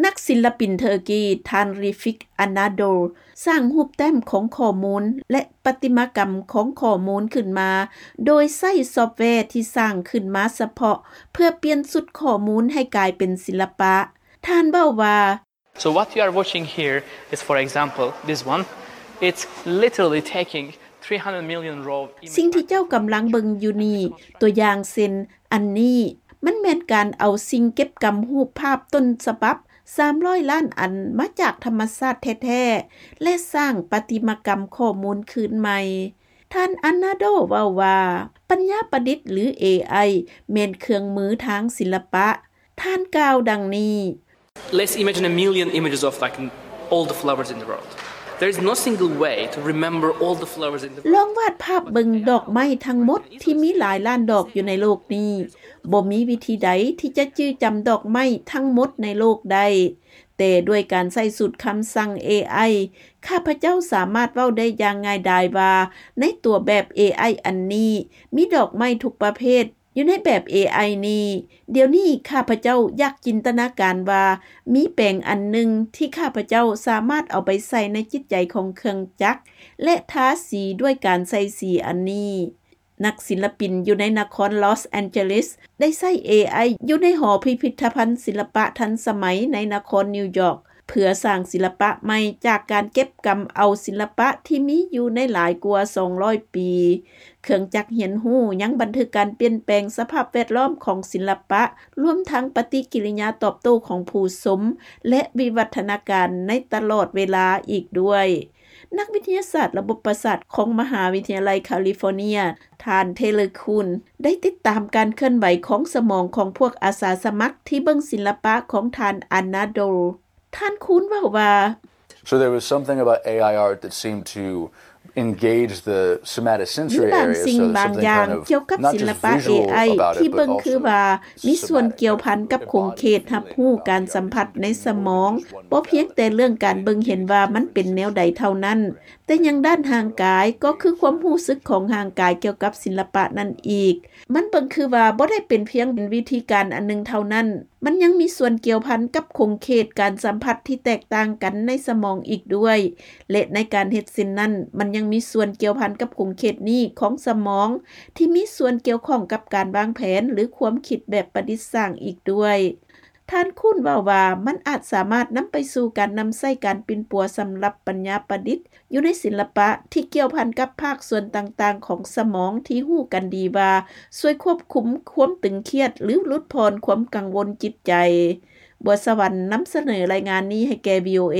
ນັກສິນລະປິນເທີກີ ທ່ານ Refik Anadol ສ້າງຮູບແຕ້ມຂອງຂໍ້ມູນ ແລະ ປະຕິມາກຳຂອງຂໍ້ມູນຂຶ້ນມາ ໂດຍໃຊ້ຊອບແວທີ່ສ້າງຂຶ້ນມາສະເພາະ ເພື່ອປ່ຽນຊຸດຂໍ້ມູນໃຫ້ກາຍເປັນສິລະປະ. ທ່ານເວົ້າວ່າ So what you are watching here is, for example, this one. It's literally taking three hundred million raw images. ສິ່ງທີ່ເຈົ້າກຳລັງເບິ່ງຢູ່ນີ້ ຕົວຢ່າງເຊັ່ນ ອັນນີ້ ມັນແມ່ນການເອົາສິ່ງເກັບກຳຮູບພາບຕົ້ນສະບັບ ສາມຮ້ອຍລ້ານອັນ ມາຈາກທຳມະຊາດແທ້ໆ ແລະ ສ້າງປະຕິມາກຳຂໍ້ມູນຄືນໃໝ່. ທ່ານ Anadol ເວົ້າວ່າ ປັນຍາປະດິດ ຫຼື ເອໄອ ແມ່ນເຄື່ອງມືທາງສິລະປະ. ທ່ານກ່າວດັ່ງນີ້. Let's imagine a million images of, like, all the flowers in the world. There is no single way to remember all the flowers in the world. ລອງວາດພາບເບິ່ງດອກໄມ້ທັງໝົດທີ່ມີຫຼາຍລ້ານດອກຢູ່ໃນໂລກນີ້. ບໍ່ມີວິທີໃດທີ່ຈະຈື່ຈຳດອກໄມ້ທັງໝົດໃນໂລກໄດ້. ແຕ່ດ້ວຍການໃຊ້ສູດຄຳສັ່ງ ເອໄອ ຂ້າພະເຈົ້າສາມາດເວົ້າໄດ້ຢ່າງງ່າຍດາຍວ່າ ໃນຕົວແບບ ເອໄອ ອັນນີ້ ມີດອກໄມ້ທຸກປະເພດ ຢູ່ໃນແບບ ເອໄອ ນີ້. ດຽວນີ້ຂ້າພະເຈົ້າຢາກຈິນຕະນາການວ່າ ມີແປງອັນໜຶ່ງທີ່ຂ້າພະເຈົ້າສາມາດເອົາໄປໃສ່ໃນຈິດໃຈຂອງເຄື່ອງຈັກ ແລະ ທາສີດ້ວຍການໃສ່ສີອັນນີ້. ນັກສິນລະປິນຢູ່ໃນນະຄອນ Los Angeles ໄດ້ໃຊ້ ເອໄອ ຢູ່ໃນຫໍພິພິທະພັນສິລະປະທັນສະໄໝໃນນະຄອນນິວຢອກ ເພື່ອສ້າງສິລະປະໃໝ່ຈາກການເກັບກຳເອົາສິລະປະທີ່ມີຢູ່ໃນຫຼາຍກວ່າສອງຮ້ອຍປີ. ເຄື່ອງຈັກຮຽນຮູ້ຍັງບັນທຶກການປ່ຽນແປງສະພາບແວດລ້ອມຂອງສິລະປະ, ລວມທັງປະຕິກິລິຍາຕອບໂຕ້ຂອງຜູ້ຊົມ ແລະ ວິວັດທະນາການໃນຕະຫຼອດເວລາອີກດ້ວຍ. ນັກວິທະຍາສາດລະບົບປະສາດຂອງມະຫາວິທະຍາໄລຄາລິຟໍເນຍ ທ່ານ Taylor Kuhn ໄດ້ຕິດຕາມການເຄື່ອນໄຫວຂອງສະໝອງຂອງພວກອາສາສະໝັກທີ່ເບິ່ງສິລະປະຂອງທ່ານ Anadol. ທ່ານ Kuhn ເວົ້າວ່າ So there was something about A I art that seemed to engage the somatosensory ມີບາງ area, ສິ່ງ so ບາງ something ຢ່າງ kind of ກ່ຽວກັບ not ສິລະ just ປະ visual AI about ທີ່ it, ເບິ່ but ງຄື also ວ່າ ມີສ່ວນ somatic, ກ່ຽວພັນ kind of ກັບຂົງເຂດ embodied ຮັບຮູ້ ການສຳຜັດໃນສະໝອງ ບໍ່ພຽງແຕ່ເລື່ອງການເບິ່ງເຫັນວ່າມັນເປັນແນວໃດເທົ່ານັ້ນ, ແຕ່ຍັງດ້ານຮ່າງກາຍ ກໍຄືຄວາມຮູ້ສຶກຂອງຮ່າງກາຍກ່ຽວກັບສິລະປະນັ້ນອີກ. ມັນເບິ່ງຄືວ່າບໍ່ໄດ້ເປັນພຽງວິທີການອັນໜຶ່ງເທົ່ານັ້ນ, ມັນຍັງມີສ່ວນກ່ຽວພັນກັບຂົງເຂດການສຳຜັດທີ່ແຕກຕ່າງກັນໃນສະໝອງອີກດ້ວຍ ແລະ ໃນການເຮັດເຊັ່ນນັ້ນ ມັນຍັງມີສ່ວນກ່ຽວພັນກັບຂົງເຂດນີ້ຂອງສະໝອງ ທີ່ມີສ່ວນກ່ຽວຂ້ອງກັບການວາງແຜນ ຫຼື ຄວາມຄິດແບບປະດິດສ້າງອີກດ້ວຍ. ທ່ານ Kuhn ເວົ້າວ່າ ມັນອາດສາມາດນຳໄປສູ່ການນຳໃຊ້ການປິ່ນປົວສຳລັບປັນຍາປະດິດ ຢູ່ໃນສິລະປະທີ່ກ່ຽວພັນກັບພາກສ່ວນຕ່າງໆຂອງສະໝອງທີ່ຮູ້ກັນດີວ່າ ຊ່ວຍຄວບຄຸມຄວາມຕຶງຄຽດ ຫຼື ຫຼຸດຜ່ອນຄວາມກັງວົນຈິດໃຈ. ບົວສະຫວັນ ນຳສະເໜີລາຍງານນີ້ໃຫ້ແກ່ VOA.